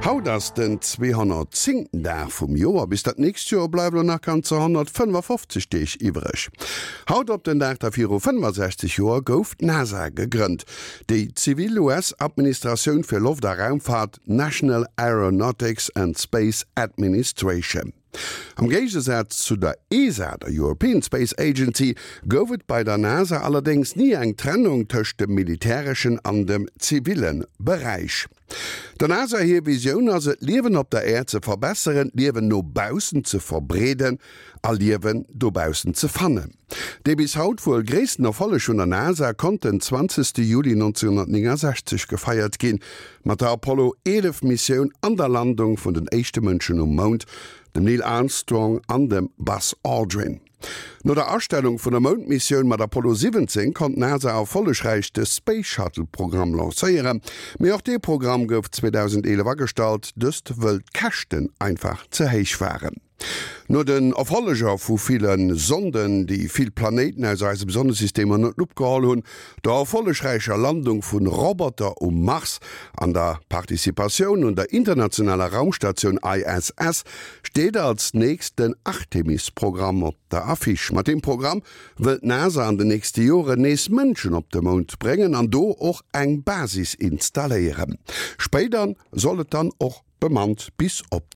Haut ass den 210. Dag vum Joer. Bis dat nächst Joer bleiwe lo nach ganzer 155 Deeg iwwreg. Haut op den Dag da viru 65 Joer gouf d'NASA gegrënnt, déi zivil US-Administratioun fir Loft a Raumfahrt, National Aeronautics and Space Administration. Am Géigesaz zu der ESA, der European Space Agency, gouf et bei der NASA allerdéngs ni eng Trennung tëscht dem militäreschen an dem ziville Beräich. Der NASA hir Visioun ass et, d'Liewen op der Äerd ze verbesseren, d'Liewen no baussen ze verbreeden a Liewen dobaussen ze fannen. Dee bis haut wuel gréissten Erfolleg vun der NASA konnt den 20 Juli 1969 gefeiert ginn, mat der Apollo 11 Missioun an der Landung vun den éischte Mënschen um Mound, dem Neil Armstrong an dem Buzz Aldrin. No der Astellung vun der Moundmissioun mat Apollo 17 konnt d'NASA erfollegräich de Space Shuttle Programm lancéieren, mee och dee Programm gouf 2011 agestallt, dëst wëll d'Käschten einfach ze héich waren. No den Erfolleger vu ville Sonden, déi vill Planéiten aus eisem Sonnesystem ënner d'Lupp geholl hunn, der erfollegräicher Landung vu Roboter um Mars an der Participatioun un der internationaler Raumstatioun ISS, steet als nächst den Artemis-Programm op der Affiche. Mat deem Programm wëll d'NASA an den nächste Joren nees Mënschen op de Mound bréngen an do och eng Basis installéieren. Spéider soll et dann och bemannt bis op.